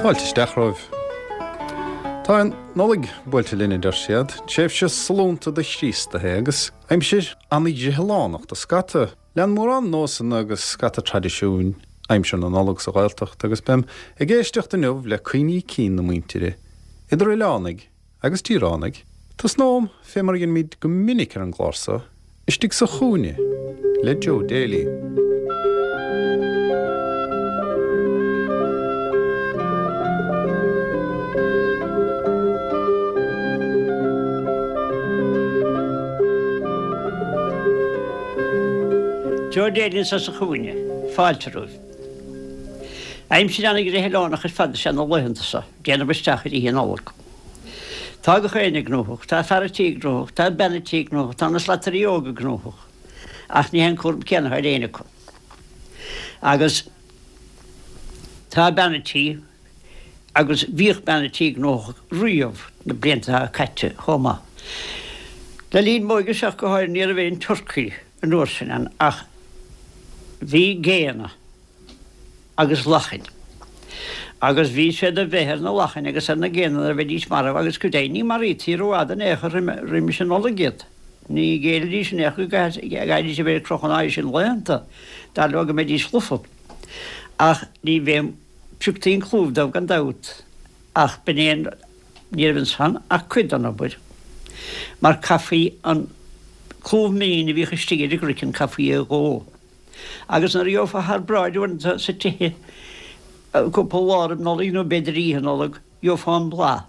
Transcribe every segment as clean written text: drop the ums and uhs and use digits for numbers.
Fáilte isteach romhaibh. Tá an Nollaig buailte linn, a deir siad. Tréimhse sollúnta do Chríostaithe agus aimsir an-ghreithileánach do scata. Lean mórán nósanna agus scata traidisiúin aimsir na Nollag sa Ghaeltacht agus beim ag éisteacht inniu le cuimhní cinn na muintire, idir oileánaigh agus tíoránaigh. Tosnóm fé mar a dheinimid go minic ar an gclár so, istigh sa chúinne le Joe Daly. Joe Daly anso sa chúinne. Fáilte romhaibh. Aimsir ana-ghreithileánach ar fad is ea na laethanta so, déanamh isteach ar Oíche Nollag. Tá gach éinne gnóthach, tá fear a' tí gnóthach, tá bean a' tí gnóthach, tá na slatairí óga gnóthach, ach ní hé an cúram céanna atá ar éinne acu. Agus tá bean a' tí, agus bhíodh bean a' tí gnóthach riamh na blianta atá caite chomh maith. Le linn m'óige-se ach go háirithe ní raibh aon turcaí an uair sin ann ach bhí géanna. agus lachain. Agus bhí siad a bheith ar na lachain agus ar na géanna nuair a bheidís marbh agus go deimhin ní maraítí rófhada in aon chor roimis an Nollaig iad. Ní ghéillidís in aon chor go gcaithfidís a bheith ar crochadh an fhad sin laethanta, dar leo go mbeidís lofa. Ach ní bheadh, phioctaí an clúmh dóibh gan dabht, ach b'in é an, ní raibh ansan ach cuid den obair, mar caithfí an clúmh mín a bhíodh istigh ar an gcraiceann, caithfí é a dhó. Agus nuair a gheofá thar bráid uaireanta sa tithe cúpla lá roimh Nollaig nó b'fhéidir oíche Nollag, gheofá an blas.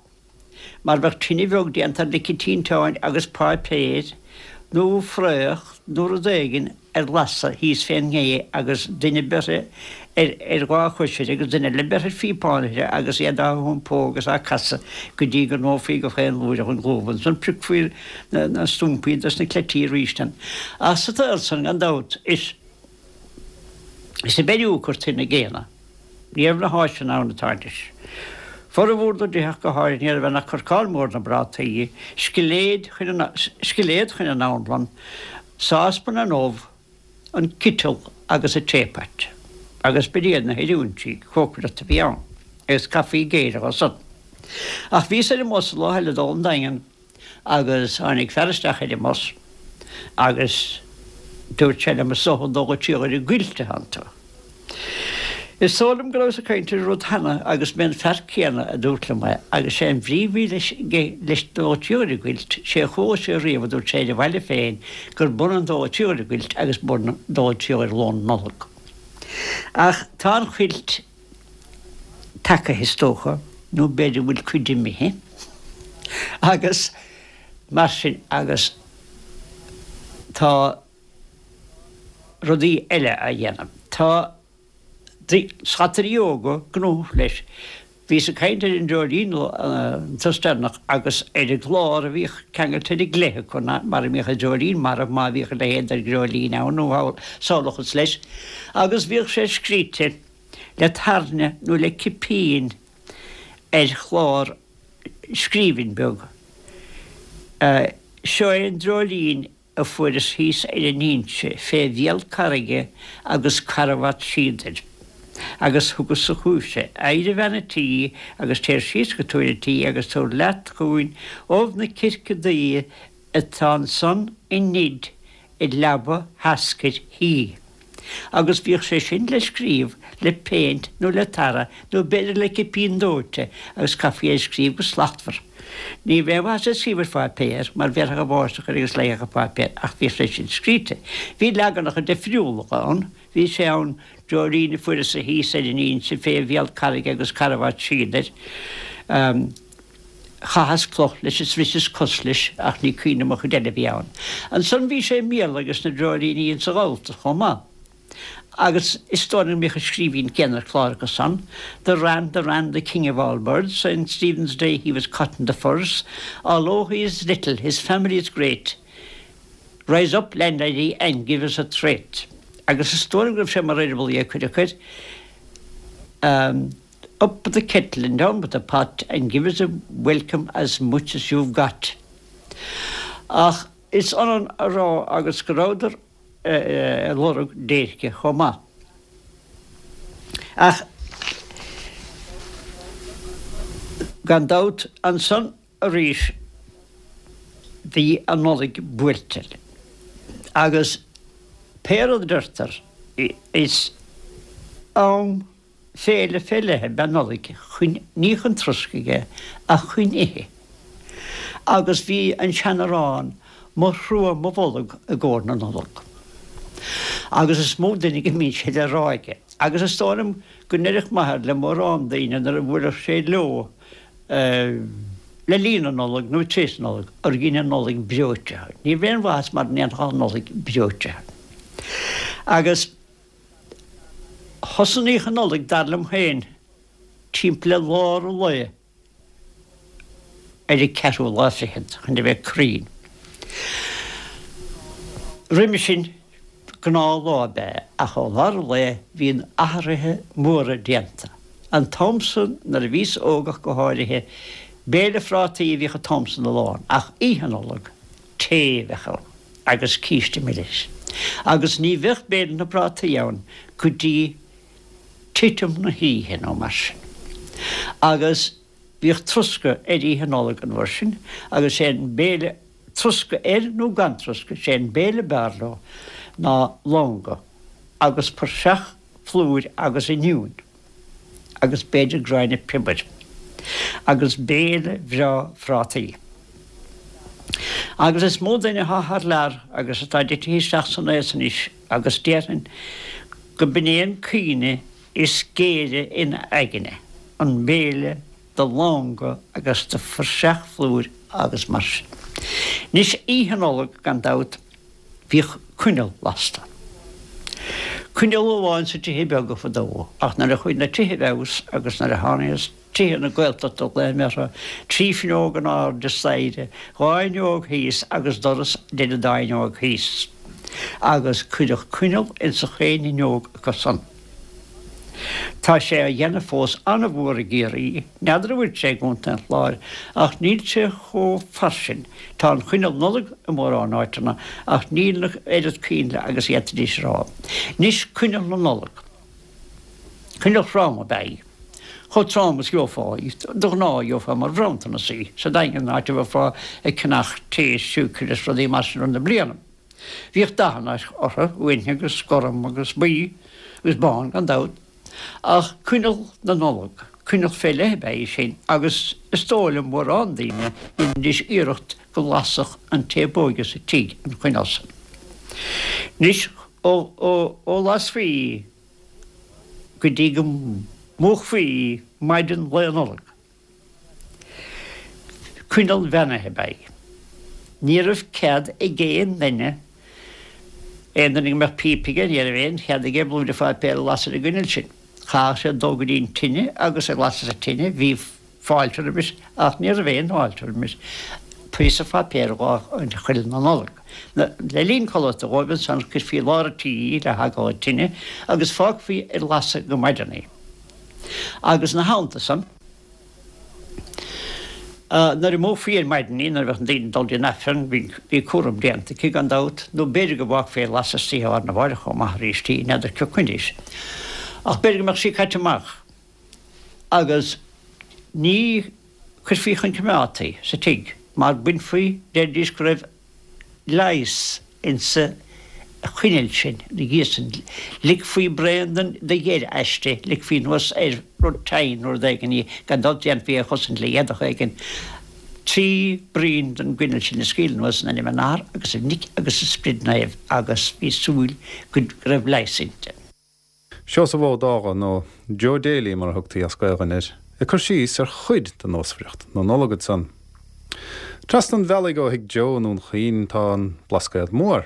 Mar bheadh tine bheag déanta ar lice tinteáin agus páipéir nó fraoch nó rud éigin ar lasadh thíos fén ngé agus duine beirthe ar ar dhá chois uirthi agus duine eile beirthe ar phíopán uirthi agus iad á hiompó agus á casadh go dtí go ndófaí go chaon lúireach an clúmh. Ansan piocfaí na stumpaí dos na cleití arís ann. Ach sa tsaol san, gan dabht, is is i bPeiriú a cuirtí na géanna. Ní raibh na háiseanna ann atá anois. Formhór na dtithe ach go háirithe ní raibh ann ach corcán mór na bprátaí, scilléad chun an scilléad chun an anlann, sáspan an ubh, an citeal agus an teapot. Agus b'in iad na hoiriúintí cócaireachta a bhí ann, agus caithfí géilleadh dó san. Ach bhíos ar an mbus an lá eile ag dul 'on Daingean agus tháinig fear isteach ar an mbus agus dúirt sé liom, is dócha ag dul go Tír an gCuilt atánn tú. Is dóigh liom go rabhas ag caint ar an rud cheana agus b'é an fear céanna a dúirt liom é agus sé an bhrí a bhí leis leis dul go Tír an gCuilt, sé a chuala sé riamh a dúirt sé ar a bhaile féin gurb ionann dul go Tír an gCuilt agus dul go Tír ar lón Nollag. Ach tá an chuilt tagaithe is dócha, nó b'fhéidir go bhfuil cuid imithe agus mar sin agus tá rudaí eile á dhéanamh. Tá slatairí óga gnóthach leis. Bhíos ag caint ar an dreoilín an turas deireanach agus ar an gclár a bhíodh ceangailte ar an gcleith acu, mar a mbíodh an dreoilín marbh, má bhíodh a leithéid de dhreoilín ann nó samhlóchas leis, agus bhíodh sé scríte le tairne nó le cipín ar chlár scríbhinn beag. Seo é an dreoilín a fuaireas thíos ar an Inse fé bhéal carraige agus carbhat síodair. Agus thugas-sa chugaibhse. Éirigh a bhean a' tí agus téir síos go túr a' tí agus tabhair leat chugainn ubh na circe duibhe atá ansan i nid i leaba sheascair thí. Agus bhíodh sé sin le scríobh le péint nó le tarra nó b'fhéidir le cipín dóite agus chaithfí é a scríobh go slachtmhar. Ní raibh aon mhaitheas ag scríobh ar pháipéar mar bhéarfadh an bháisteach air agus leáfadh an páipéar ach bhíodh sé sin scríte. Bhí leaganacha deifriúla ann. Bhí sé ann, dreoilín a fuaireas-sa thíos ar an Inse fé bhéal carraige agus carbhat síodair. Chaitheas cloch leis is bhriseas cos leis ach ní cuimhin liom an chuid eile a bhí ann. Ansan bhí sé i mBéarla ages na dreoilíní insa Ghalltacht chomh maith. Agus is dóigh liom go mbíodh an scríbhinn céanna ar chlár acu san, The wren, the wren, the king of all birds, Saint Stephen's Day he was caught in the furze, Although he is little, his family is great, Rise up, landlady, and give us a treat. Agus is dóigh liom go raibh sé mar eireaball é cuid acu air. Up with the kettle and down with the pot and give us a welcome as much as you've got. Ach is ionann a rá agus go rabhadar ag lorg déirce chomh maith. Ach. Gan dabht, ansan arís bhí an Nollaig buailte agus pé rud a deirtear, is am féile fé leith ab ea Nollaig, chun, ní chun troscaidh é, ach chun ithe. Agus bhí an sean-arán Mo thrua mo bholg i gcomhair na Nollag. Agus is mó duine go mbíonn sé le rá aige. Agus is dóigh liom go ndeireadh m'athair le mórán daoine nuair a bhuaileadh sé leo le linn na Nollag nó tar éis na Nollag, gur dhein an Nollaig breoite thú. Ní raibh aon mhaitheas mara ndéanfá an Nollaig breoite thú. Agus thosnaíodh an Nollaig, dar liom féin, timpeall le lár an lae. ar an ceathrú lá fichead, chun a bheith cruinn. Roimhe sin, gnáthlá ab ea é, ach ó lár an lae bhíonn athruithe móra déanta. An t-am san, nuair a bhíos óg ach go háirithe, béile phrátaí a bhíodh an t-am san a lán, ach Oíche Nollag, tae a bheadh ann agus císte milis. Agus ní bheadh béile na bprátaí ann go dtí titim na hoíche nó mar sin. Agus bhíodh troscadh ar Oíche Nollag an uair sin agus sé an béile, troscadh air nó gan troscadh, sé an béile b'fhearr leo ná longa agus praiseach phlúir agus oinniúin agus b'fhéidir gráinne piobair agus béile bhreá phrátaí. Agus is mó duine atá thar lear agus atá titithe isteach san aos anois agus déarfainn go b'in é an cuimhne is géire ina aigne, an béile de longa agus de phraiseach phlúir agus mar sin. Anois, Oíche Nollag, gan dabht, bhíodh coinneal lasta. Coinneal amháin sa tithe beaga fadó, ach nuair a chuaigh na tithe i bhfeabhas agus nuair a tháinig Tithe na Gaeltachta glaoim orthu, 3 fuinneog in airde staighre, 2 fhuinneog thíos agus doras idir an dá fhuinneog thíos. Agus cuireadh coinneal ins chaon fhuinneog acu san. Tá sé á dhéanamh fós an-mhór i gCiarraí, n'fheadar an bhfuil sé i gContae an Chláir, ach níl sé chomh fairsing. Tá an choinneal Nollag i mórán áiteanna ach níl an oiread coinnle agus a d'fhéadfaidís a rá. Anois coinneal na Nollag. Coinneal throm ab ea í. Chomh trom is gheofá í. De ghnáth gheofá mar bhronntanas í sa Daingean, áit a bheifeá ag ceannach tae is siúcra is rudaí mar sin i rith na bliana. Bhíodh dathanna orthu, uaine agus gorm agus buí agus bán gan dabht. Ach coinneal na Nollag, coinneal fé leith ab ea í sin agus is dóigh le mórán daoine dheinidís iarracht go lasfadh an té ab óige sa tigh an choinneal san. Anois ó lasfaí í go dtí go múchfaí í maidin Lae Nollag. Coinneal bheannaithe ab ea í. Ní raibh cead ag aon duine, aon duine go mbeadh píopa aige, ní raibh aon chead aige blúire pháipéir a lasadh ar an gcoinneal sin. Chaithfeadh sé dul go dtí an tine agus ag lasadh sa tine bhí fáilte roimis, ach ní raibh aon fháilte roimis píosa pháipéir dhá choinneal na Nollag. Le linn codlata dhóibh ansan chuirfí i lár an tí í le heagla tine agus fágfaí ar lasadh go maidin í. Agus ina theannta san, nuair a mhúchfaí ar maidin í, nuair a bheadh na daoine ag dul dtí an Aifreann, bhí cúram déanta aici gan dabht, nó b'fhéidir go bhfágfaí ar lasadh istoíche lá arna mháireach chomh maith arís í, n'fheadar cé coinnis. Ach b'fhéidir go mbeadh sí caite amach. agus ní chuirfí chun coimeádta í sa tigh mar bainfí, deiridís go raibh leigheas insa choinneal sin, ina dhiaidh sin, ligfí braon de gheir aisti, ligfí anuas ar rud tinn nó rud éigin í, gan dabht déanfaí é a chosaint le éadach éigin, 3 braon den gcoinneal sin a scaoileadh anuas in ainm an Athar agus an Mhic agus an Sprid Naoimh agus bhí súil go raibh leigheas inti. Seosamh Ó Dágha, nó Joe Daly mar a thugtaí as Gaelainn air, ag cur síos ar chuid de nósmhaireacht na Nollag ansan. Trasna an bhealaigh ó thigh Joe i nDún Chaoin tá an Blascaod Mór.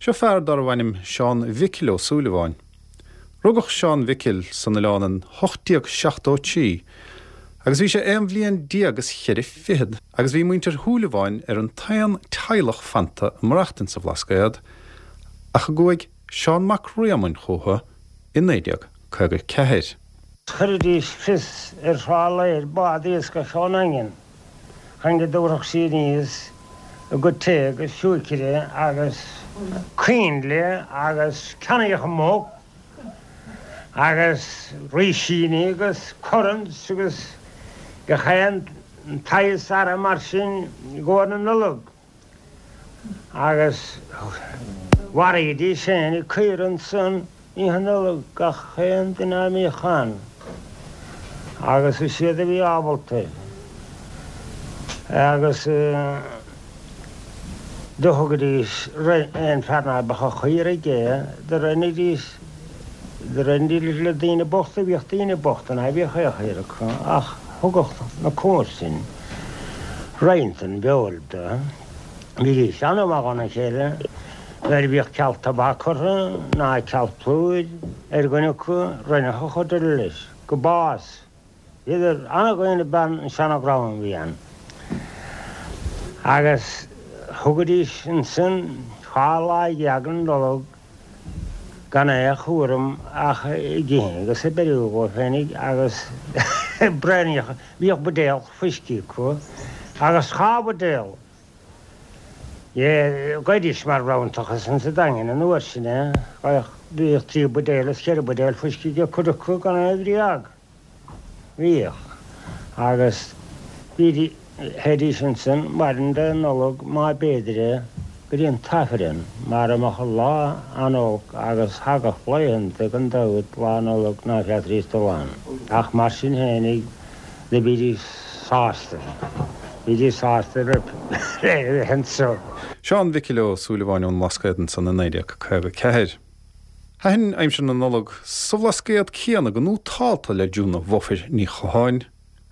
Seo fear darbh ainm Seán Mhicil Ó Súilleabháin. Rugadh Seán Mhicil san oileán in 1873 agus bhí sé aon bhliain déag is cheithre fichead agus bhí muintir Shúilleabháin ar an t-aon teaghlach fanta ag maireachtaint sa Bhlascaod ach a gcuaigh Seán Mac Réamoinn chúthu i 1954. Chuiridís fios ar Thrá Láir bád iascaigh ón nDaingean chun go dtabharfadh sí aníos a gcuid tae agus siúicre agus coinnle agus ceannaíodh muc agus rísíní agus currants agus. Gach aon tsaghas earra mar sin i gcomhair na Nollag agus mharaídís féinig caora ansan Oíche Nollag gach aon duine a mbíodh ann agus is iad a bhí ábalta agus do thugaidís aon fear ná beadh an chaora aige do roinnidís do roinnidís le daoine bochta bhíodh daoine bochta ná bíodh aon chaora acu ach thugadh na comharsain roinnt den bhfeoil do. Bhídís an-mhaith dhona chéile nuair a bhíodh ceal tobac orthu ná ceal plúir ar dhuine acu, roinneadh an chuid eile leis go bás. Bhíodar an-dhaonna ab ea an seana-dhream a bhí ann. Agus thugaidís ansan 12 lá den Nollaig gan aon chúram ach ag ithe agus ag beiriú dhóibh féinig agus braonaíocha. Bhíodh buidéal fuiscí acu agus dhá bhuidéal. Gheibhidís mar rabhantachas insa Daingean an uair sin é. Bhíodh trí bhuidéal is cheithre bhuidéal fuiscí ag cuid acu gan aon bhréag. Bhíodh. Agus bhídís, théidís ansan maidin Dé Nollag má b'fhéidir é go dtí an t-Aifreann mar a mbeadh an lá an-olc agus thagadh laethanta gan dabht Lá Nollag ná féadfaidís dul ann. Ach mar sin fhéinig do bhídís sásta. Bhídís sásta le bheith anso. Seán Mhicil Ó Súilleabháin ón mBlascaod ansan i 1954. Thaitin aimsir na Nollag sa Bhlascaod céanna go nótálta le Júna Bhofair Ní Chatháin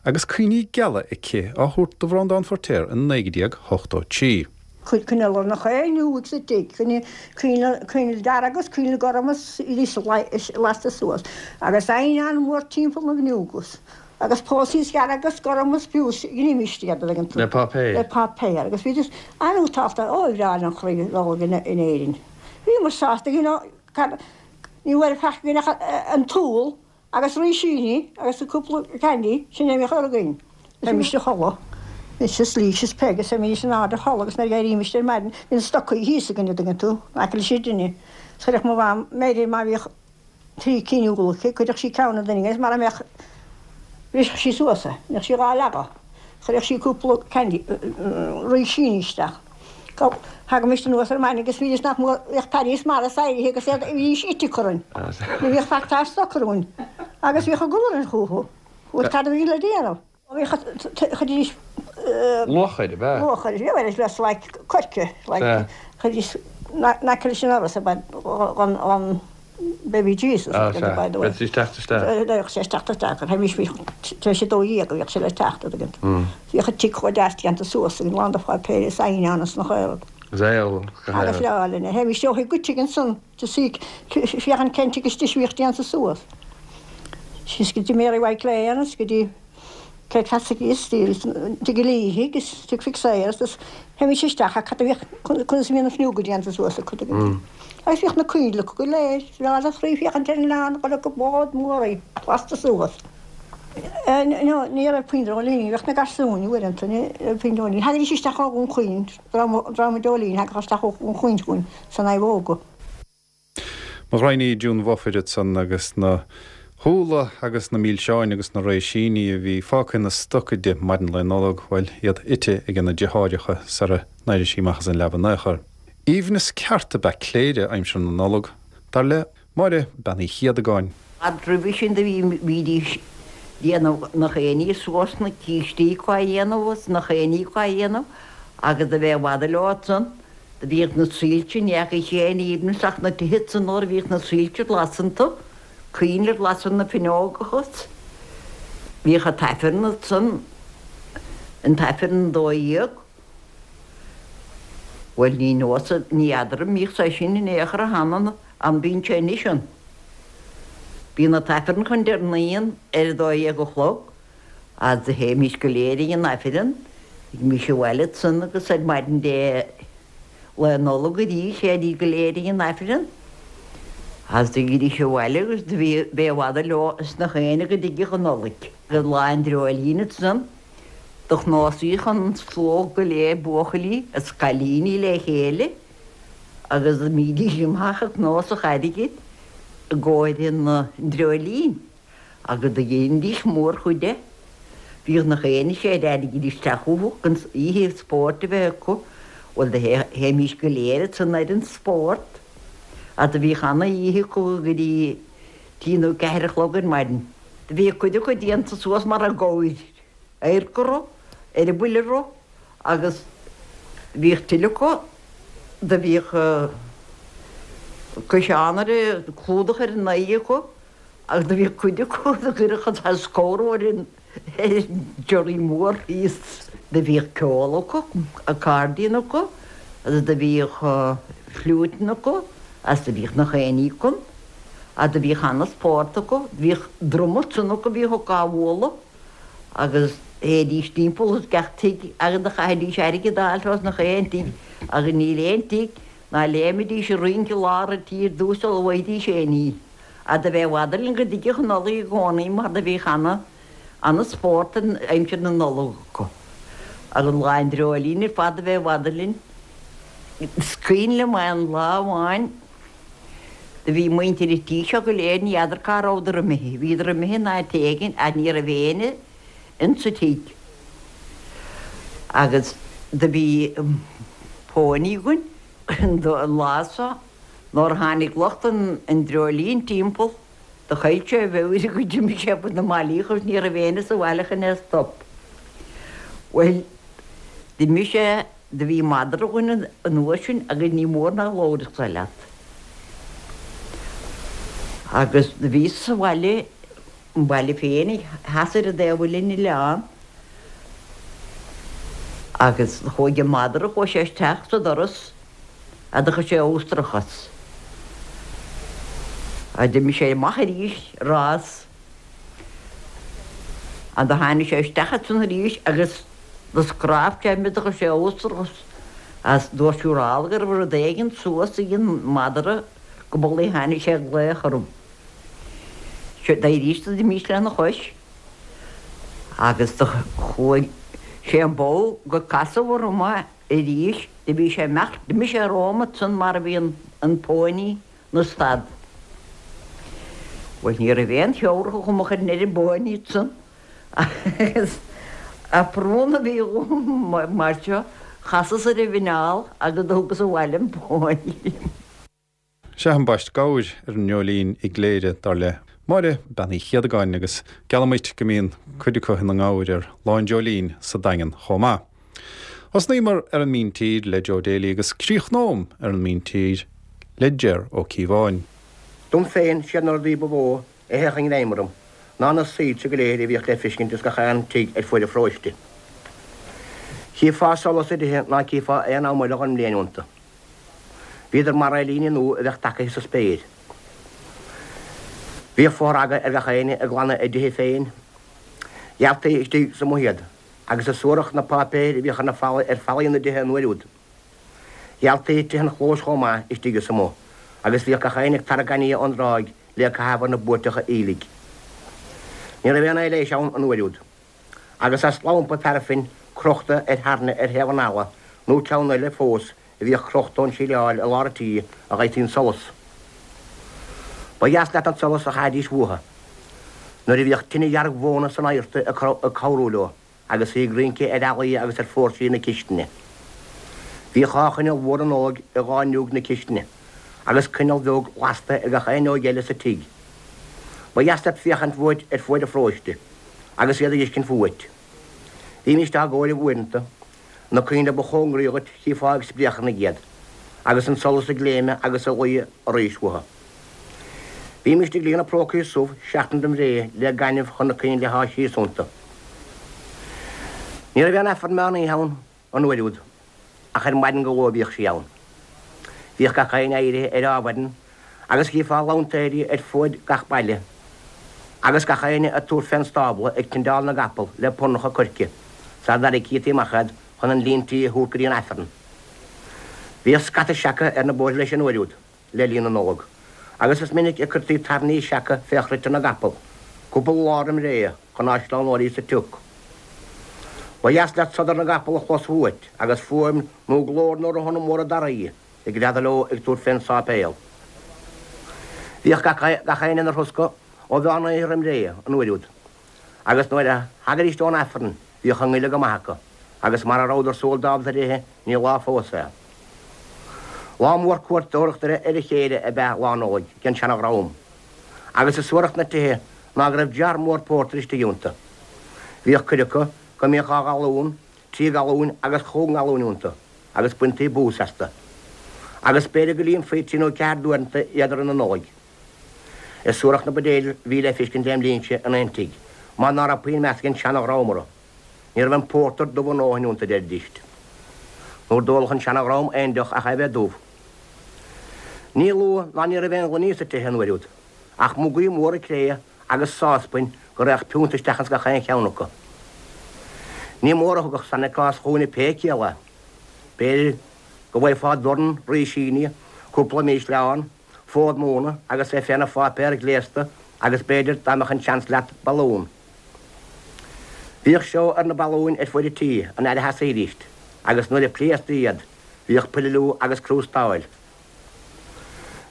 agus cuimhní geala aici á thabhairt do Bhreandán Feiritéar i 1983. Cuir coinneal ar na fhuinneoig sa tigh, coinneal dearg agus coinneal gorm is iad lasta suas, agus eidhneán mór timpeall na bhfuinneog agus pósaí dearg agus gorm is fiú ghnímis iad, an dtuigeann tú. Le páipéar. Le páipéar agus bhídís an-nótálta, ó ba bhreá linn chroí Nollag in Éirinn. Bhíomar sásta, you know, cad, ní raibh faic againn ach an t-úll agus rísíní agus cúpla candy, sin é a bhíodh againn. Théimis a chodladh, mise is Lís is Peig is théimís in airde a chodladh agus nuair a d'éirímist ar maidin, bhí na stocaí thíos againn, an dtuigeann tú, in aice leis an dtine. Is chuirfeadh mo mham, b'fhéidir má bhíodh trí cinn úll aici, chuirfeadh sí ceann an duine agus mara mbeadh, bhrisfeadh sí suas é, bheadh sí dhá leagadh. Chuirfeadh sí cúpla candy, rísíní isteach. Thagaimis anuas ar maidin agus bhídís nach mór, bhíodh Paddy is Maurice éirithe agus iad, bhídís ite acu orainn. Ní bhíodh faic dár stoc orainn agus bhíodh eagla orainn chucu. Bhuel, cad a bhí le déanamh? Bhíodh, chuiridís. Luachair, ab ea? Luachair, bhí, bhuel, it's like coirce, like, chuiridís in aice leis an ndoras, an Baby Jesus, Ah, sea. by the way. Bheadh sé teacht isteach. Bheadh sé teacht isteach, théimis, bhí, tar éis a 12 a bhíodh sé le teacht, an dtuigeann tú. Bhíodh an tigh chomh deas déanta suas againn, lán de pháipéir is eidhneán is nach aon rud. Is eol, go Agus breá linn é. Théimis ó thigh go tigh ansan to see, féachaint cén tigh is deise a bhíodh déanta suas. Síos go dtí Mary White Lane is go dtí Kate Cassidy is tigh an Liathaigh is tigh Mhic Sayers is théimis isteach ach cad a bhíodh, conas a bhí na fuinneoga déanta suas acu tuigeann tú. Agus bhíodh na coinnle acu go léir, is breá le croí féachaint ar an oileán gur go bád mór í, lasta suas. No, ní raibh puinn dreoilíní, bhíodh na garsúin uaireanta, ní raibh puinn dreoilíní. Thagaidís isteach ó Dhún Chaoin, dream dreoilín, thagadh isteach ó Dhún Chaoin chugainn san naomhóga. Mo ghraidhin í June Bhofair ansan agus na húlla agus na milseáin agus na réisíní a bhí fágtha ina stoca di maidin Lae Nollag, bhuel, iad ite aige na deartháireacha sara n-éirigh sí amach as an leaba in aon chor. Aoibhneas ceart ab ea Cléire aimsir na Nollag, dar le Máire Bean Uí Chiadagáin. Fhad roimhe sin do bhí, bhídís déanamh nach aon ní suas na cístí acu á dhéanamh agus nach aon ní acu á dhéanamh agus do bheith i bhfad leo ansan. Do bhíodh na soilse, ní fheacaís aon aoibhneas ach na tithe san nuair a bhíodh na soilse glas iontu, coinnle glas ar na finneógacha. Bhíodh an t-aifreann ansan, an t-aifreann 12. Bhuel, ní nós, ní fheadar an mbíodh sé sin in aon chor cheana, an mbíonn sé anois ann. Bíonn an t-aifreann chun deireanaí ann ar a dó dhéag a chlog. Agus do théimís go léir ag an Aifreann, thagaimís abhaile ansan agus ar maidin Dé Lá Nollag arís théidís go léir ag an Aifreann. Agus do thagaidís abhaile agus do bhí, b'é i bhfad leo is nach éinne go dtigeadh an Nollaig. Agus lá an dreoilín ansan do chnuasaíodh an slógh go léir buachaillí is cailíní le chéile agus d'imídís amach ag cnuasach airgid i gcomhair an dreoilín. Agus do dheinidís mórchuid de. Bhíodh nach aon séid airgid isteach chucu chun oíche spóirt a bheith acu. Bhuel do théimís go léir ansan ar an spórt. Ach do bhíodh ana oíche acu go dtí trí nó ceathair a chlog ar maidin. Do bhíodh cuid acu déanta suas mar a gabhair, adharc orthu, eireabaill orthu agus bhíodh tuilleadh acu do bhíodh ciseán ar a, clúdach ar a n-aghaidh acu Agus do bhíodh cuid acu do chuirfeadh an saghas scamhar ar an giorraí mór thíos. Do bhíodh ceol acu, accordion acu, agus do bhíodh fliúiteanna acu, agus do bhíodh nach aon ní acu. Agus do bhíodh ana-spórt acu. Do bhíodh druma ansan acu a bhíodh acu á bhualadh, agus théidís timpeall as gach tigh agus do chaithidís airgead a fháil as nach aon tigh, agus níl aon tigh ná léimidís ag rince i lár an tí ar dtús sula bhfaighidís aon ní. Ach do bheith i bhfad linn go dtigeadh an Nollaig i gcónaí mar do bhíodh ana, ana spórt in aimsir na Nollag acu. Agus Lá an Dreoilín ar fad do bheith i bhfad linn. Is cuimhin liom aon lá amháin do bhí muintir an tí seo go léir, ní fheadar cá rabhadar imithe, bhíodar imithe in áit éigin ach ní raibh éinne insa tigh. Agus do bhí pónaí againn an lá so. Nuair a tháinig lucht an dreoilín timpeall, do chaill sé a mheabhair agus d'imigh sé fá na mballaí agus ní raibh éinne sa bhaile chun é a stop. Bhuel, d'imigh sé, do bhí madra againn an uair sin agus ní mór ná labharfadh sé leat. Agus do bhíos sa bhaile, an baile féin, theas ar an dtaobh eile den oileán, agus chuaigh an madra, chuaigh sé isteach sa doras, a do chuir sé amhantrach as. A d'imigh sé amach arís rás. A do tháinig sé isteach ansan arís agus do scráb sé mé do chuir sé amhantrach as. Dúirt siúrála go raibh rud éigin suas ag an madra go b'amhlaidh a tháinig sé ag glaoch orm. D'éiríos do d'imíos lena chois agus do chuaigh sé an ball go casadh orm é. Arís, do bhí sé imeacht, d'imigh sé romham ansan mar a bhí an póiní 'na stad. Bhuel, ní raibh aon theabhrach agam a chuirfinn ar an bpóiní ansan agus a prún a bhí dhom mar seo, chasas ar an mhuineál agus do thugas abhaile an póiní. Sea, an baist gabhair ar an nDreoilín i gCléire, dar le Máire Bean Uí Chéadagáin, agus geallaim dhuit go mbíonn cuid acu ina ngabhair ar Lá an Dreoilín sa Daingean chomh maith. Thosnaíomar ar an míntír le Joe Daly agus críochnóm ar an míntír le Ger Ó Cíobháin. Dom féin, siad na rudaí ba mhó a théadh i ngreim orm ná na soilse go léir a bhíodh le feiscint ins gach aon tigh ar fuaid an pharóiste. Chífeá solas i dtithe ná cífeá aon am eile dhon mbliain iontu. Bhíodar mar aerlíne nua a bheadh tagaithe sa spéir. Bhíodh fothragadh ar gach éinne ag glanadh a dtithe féin. Ghealtaí istigh 's amuigh iad, agus is suarach na páipéir a bhíodh ar na fallaí, ar fallaí na dtithe an uair úd. Ghealtaí tithe an chlóis chomh maith istigh is amuigh, agus bhíodh gach éinne ag tarrac gaineamh ón dtráigh le caitheamh ar na buairteacha aoiligh. Ní raibh aon aibhléis ann an uair úd. Agus as lampa paraifin crochta ar thairne ar thaobh an fhalla, nó ceann eile fós a bhíodh crochta ón síleáil i lár an tí a dh'fhaightí an solas. Ba dheas leat an solas a chaithidís uathu nuair a bhíodh tine dhearg mhóna san adharta ag cabhrú leo agus í ag rince ar fhallaí agus ar phóirsí na cistine. Bhíodh dhá choinneal mhóra Nollag i dhá fhuinneog na cistine agus coinneal bheag lasta ag gach aon fhuinneog eile sa tigh. Ba dheas leat féachaint uait ar fuaid an pharóiste agus iad ag fheiscint fúait. Bhímíst á gcomhaireamh uaireanta. Na coinnle ba chóngaraí dhuit chífeá ag spréacharnaigh iad, agus an solas ag léimeadh agus ag luí arís uathu. Bhímíst ag líonadh prócaí subh seachtain roim ré le gaineamh chun na coinnle a shá síos iontu. Ní raibh aon Aifreann meán oíche ann an uair úd, ach ar maidin go luath a bhíodh sí ann. Bhíodh gach éinne éirithe ar ádhmhaidin agus chífeá lantaeirí ar fuaid gach baile, agus gach éinne ag tabhairt fén stábla ag tindeáil na gcapall le puirneacha coirce, sara dtarraigtí amach iad chun an líon tí a thabhairt go dtí an Aifreann. Bhíodh scata seaca ar na bóithre leis an uair úd, le linn na Nollag, agus is minic a cuirtí tairní seaca fé chruite na gcapall, cúpla lá roim ré, chun á sleamhnóirí sa tsioc. Ba dheas leat sodar na gcapall a chlos uait, agus fuaim nó glór na rothanna móra daraí ag greadadh leo ag tabhairt fén sáipéal. Bhíodh gach éinne ina throscadh ó mheán oíche roim ré, an uair úd. Agus nuair a thagaidíst ón Aifreann bhíodh a ngoile go maith acu, agus mara rabhadar súil ábalta ar ithe ní lá fós é. Lá mór cuairteoireachta ar a chéile ab ea Lá Nollag ag an seana-dhream. Agus is suarach na tithe ná go raibh jar mór pórtair istigh iontu. Bhíodh cuid acu go mbíodh 2 ghalún, 3 ghalúin agus chúig ngalúin iontu agus baintí bús astu. Agus b'fhéidir go líonfaí trí nó ceathair d'uaireanta iad i rith na Nollag. Is suarach na buidéil a bhí le feiscint lem linnse in aon tigh, mar ná raibh puinn meas ag an seana-dhream orthu. Ní raibh an pórtar dubh a ndóthain iontu, a deiridíst. Nuair d'ólfadh an seana-dhream aon deoch ach é bheith dubh. Ní lú ná ní raibh aon ghloiní sa tithe an uair úd, ach mugaí móra cré agus sáspain go raghadh piúnta isteach ins gach aon cheann acu. Ní mór a thugadh Santa Claus chugainne pé ciall é. B'fhéidir go bhfaighfeá dorn rísíní, cúpla mísleán, fód móna agus é féna pháipéar gléasta agus b'fhéidir dá mbeadh an seans leat, balún. Bhíodh seó ar na balúin ar fuaid an tí an fhaid a sheasaídíst agus nuair a pléasctaí iad bhíodh pililiú agus crústáil.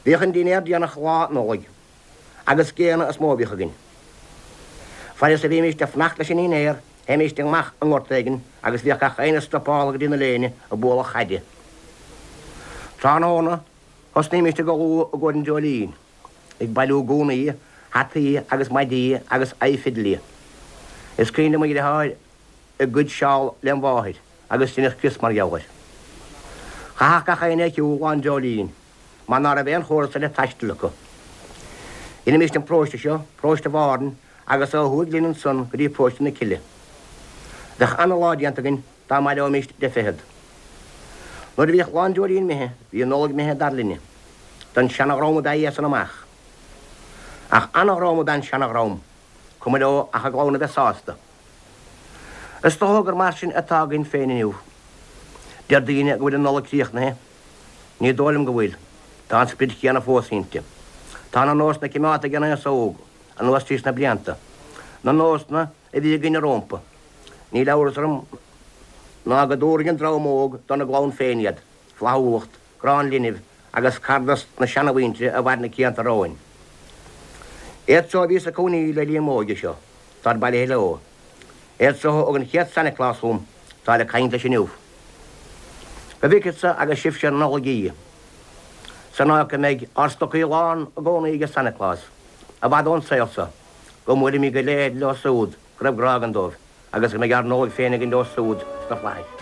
Bhíodh an dinnéar déanach Lá Nollag agus géanna is mó a bhíodh againn. Fad is a bhímíst ag fanacht leis an ndinnéar théimíst amach i ngort éigin agus bhíodh gach éinne stopáltha go dtí na léine ag bualadh chaide. Tráthnóna thosnaímíst ag ullmhú i gcomhair an dreoilín. ag bailiú gúnaí, hataí agus maidí agus aghaidh-fhidlí. Is cuimhin liom mo dhriotháir ag goid seál lem mháthair agus deineadh crios mar gheall air. Chaithfeadh gach éinne ar shiúl lá an dreoilín mar ná raibh aon chóras eile taistil acu. Dheinimíst an paróiste seo, paróiste Bhárthain, agus ó thuaidh linn ansan go dtí paróiste na Cille. Bheadh ana-lá déanta againn dá mbaileoimíst deich fichead. Nuair a bhíodh lá an dreoilín imithe, bhí an Nollaig imithe dar linne. Don seana-dhream ab ea í as san amach. Ach ana-dhream ab ea an seana-dhream, cuma leo ach a gclann a bheith sásta. Is dócha gur mar sin atá againn féin inniu. Deir daoine go bhfuil an Nollaig críochnaithe. Ní dóigh liom go bhfuil. Tá an sprid chéanna fós inti. Tá na nósanna cimeádta ag an aos óg anuas tríos na blianta. Na nósanna a bhí againne rómpa. Níl amhras orm ná go dtabharfaidh an dream óg dona gclann féin iad, flaithiúlacht, grá an linbh agus cardas na seanamhuintire a mhair na cianta romhainn. Iad so a bhíos ag cónaí le linn m'óige seo, táid bailithe leo. Iad so a thug an chéad Santa Claus chugam, táid ag caint leis inniu. Go bhfeiceadsa agus sibhse an Nollaig í, san áit go mbeidh ár stocaí lán i gcónaí age Santa Claus, i bhfad ón saol so. Go mbuailfimid go léir leo súd go raibh grá againn dóibh agus go mbeidh ár Nollaig féin againn leo súd sna flaithis.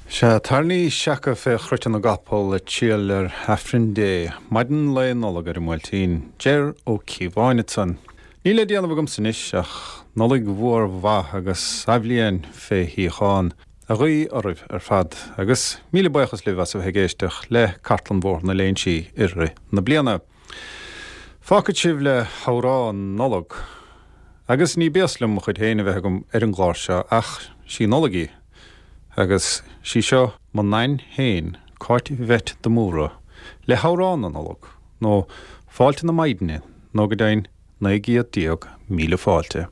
Sea, tairní seaca fé chruite na gcapall ag triall ar Aifreann Dé, maidin lae Nollag ar an mBuailtín. Ger Ó Cíobháin ansan. Níl le déanamh agamsa anois ach Nollaig mhór mhaith agus athbhliain fé shíochán a ghuí oraibh ar fad agus míle buíochas libh as a bheith ag éisteacht le Cartlann Bhóthar na Léinsí i rith na bliana. Fágfad sibh le hamhrán Nollag. Agus ní béas liom mo chuid féin a bheith agam ar an gclár seo ach sí Nollaig í. Agus sí seo mo Nain féin, Cáit Bheit de Mórdha, le hamhrán na Nollag, nó Fáilte na Maighdine, nó go deimhin 1900 fáilte.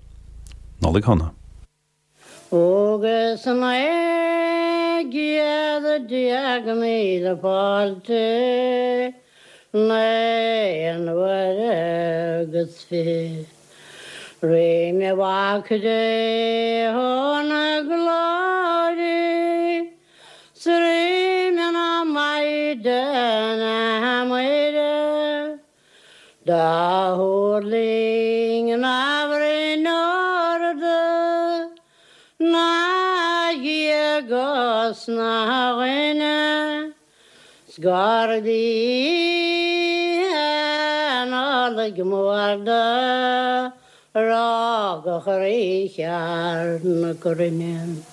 Nollaig Shona. Agus 1900 fáilte naon uaire agus fiche roimhe Mhac Dé chun glóire 's roimhe na Maighdine Muire. Do thuirling na broinn arda ná Dhia 'gus ná dhuine 's gurb í an Nollaig mhór do rugadh Rí cheart na cruinne.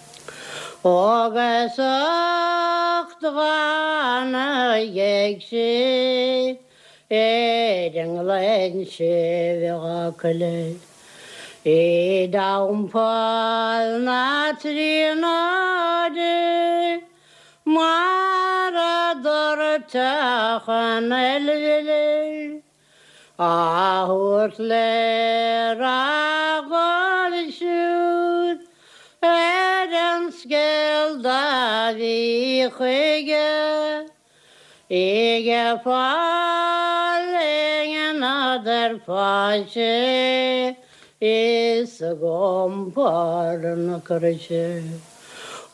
Agus ucht dhána ghéag sí. Ar an ngleann séimh coille i dTeampall na Tríonóide mar a doirteadh an fhuil á thabhairt le rath dhóibh siúd ar an scéal do bhí chuige. Ag fáil i ngnad ar fáilte Is ag iompar na croise.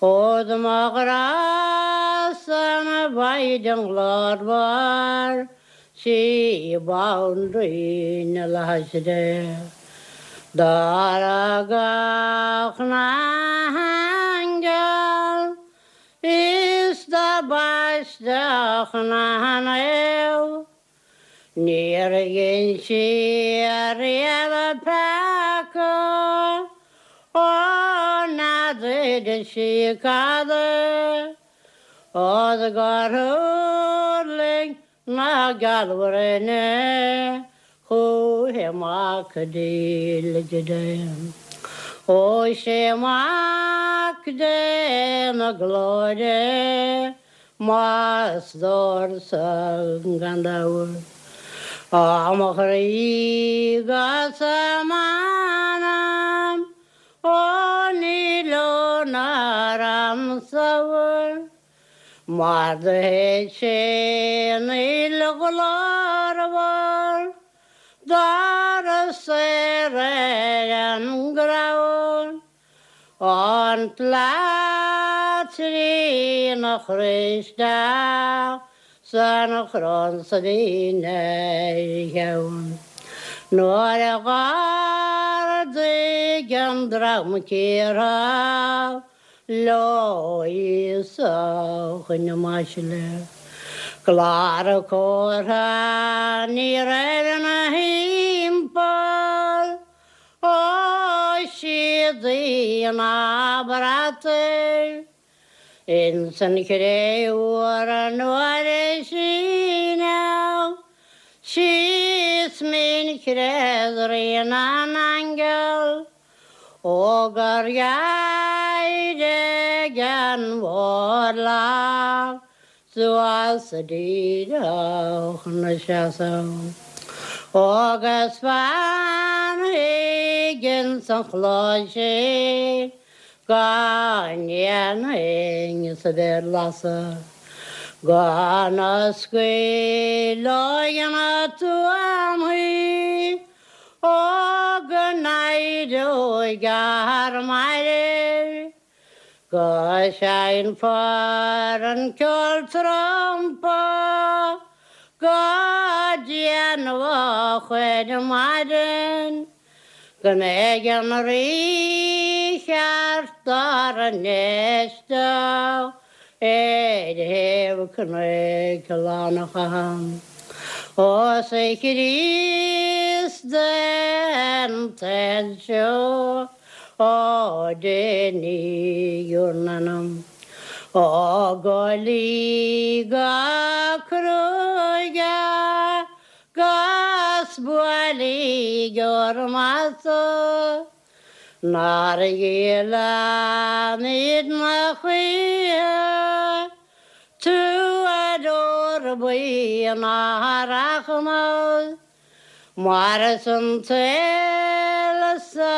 Ó do mo ghrá-sa an Mhaighdean ghlórmhar 'sí Banríon na Flaithis Dé. D'adhradh gach n-aingeal is do baisteadh na naomh. Níor dhein sí ariamh peaca, ó n'fheadair sí cad é, ó 's gur thuirling na gealbhruinne chúichi Mac dílis Dé. Ó 'sé Mac Dé na glóire Mo stór-sa gan dabht. Ó mo chroí 'gus m'anam, ó ní leor ná ormsa Mar do shéid sé an fhuil ghlórmhar dár saor ar an gcrann. An tslat trína chroí isteach 's an chrann 's a bhí ina cheann. Nuair a dh'ardaigh an dream cíortha leo Íosa chun na maisle. Clár comhartha ní raibh ina thimpeall. Ó séadaí ná brataí ins an chré fhuar nuair a síneadh síos mín chreach Rí na nAingeal ó gur éirigh an mhórlach Suas díreach 'na seasamh agus fanfaidh ins an chlós sin go ndéanfainn sa bhéar lasadh go n-oscaileoidh na tuamaí ó go n-éireoidh ár mairbh. Go seinnfear an ceol trumpa go déanach ar maidin, go mbeidh an Rí cheart ár n-éisteacht ar thaobh cnoic Lannachán. Ó 's a Chríost den tsaol seo. Ó déanaigí bhur n-anam ó go luí go cruaidh 'gus buailígí bhur mbasa nár ghéilleann na choíche tuadóir buí ná rachmas. Mar san tsaol so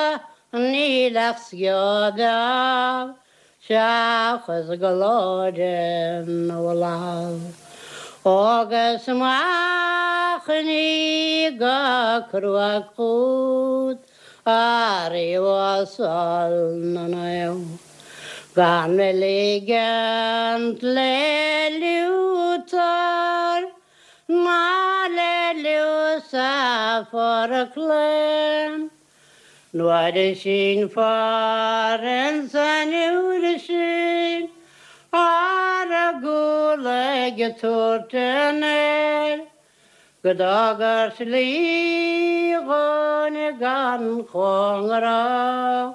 níl ach sceo beag seachas glóire na bhFlaitheas. Agus machainí go cruaidh chút a Rí uasal na Naomh, gan mé ligint le Liútar Ná le Lúsafar a chlaon nuair a sínfear ins an uair sin ar a gcúl ag tabhairt an aeir go dtugair slí dhúinn gan chóngarach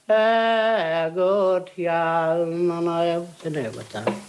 ag tabhairt gheal na naomh san agat.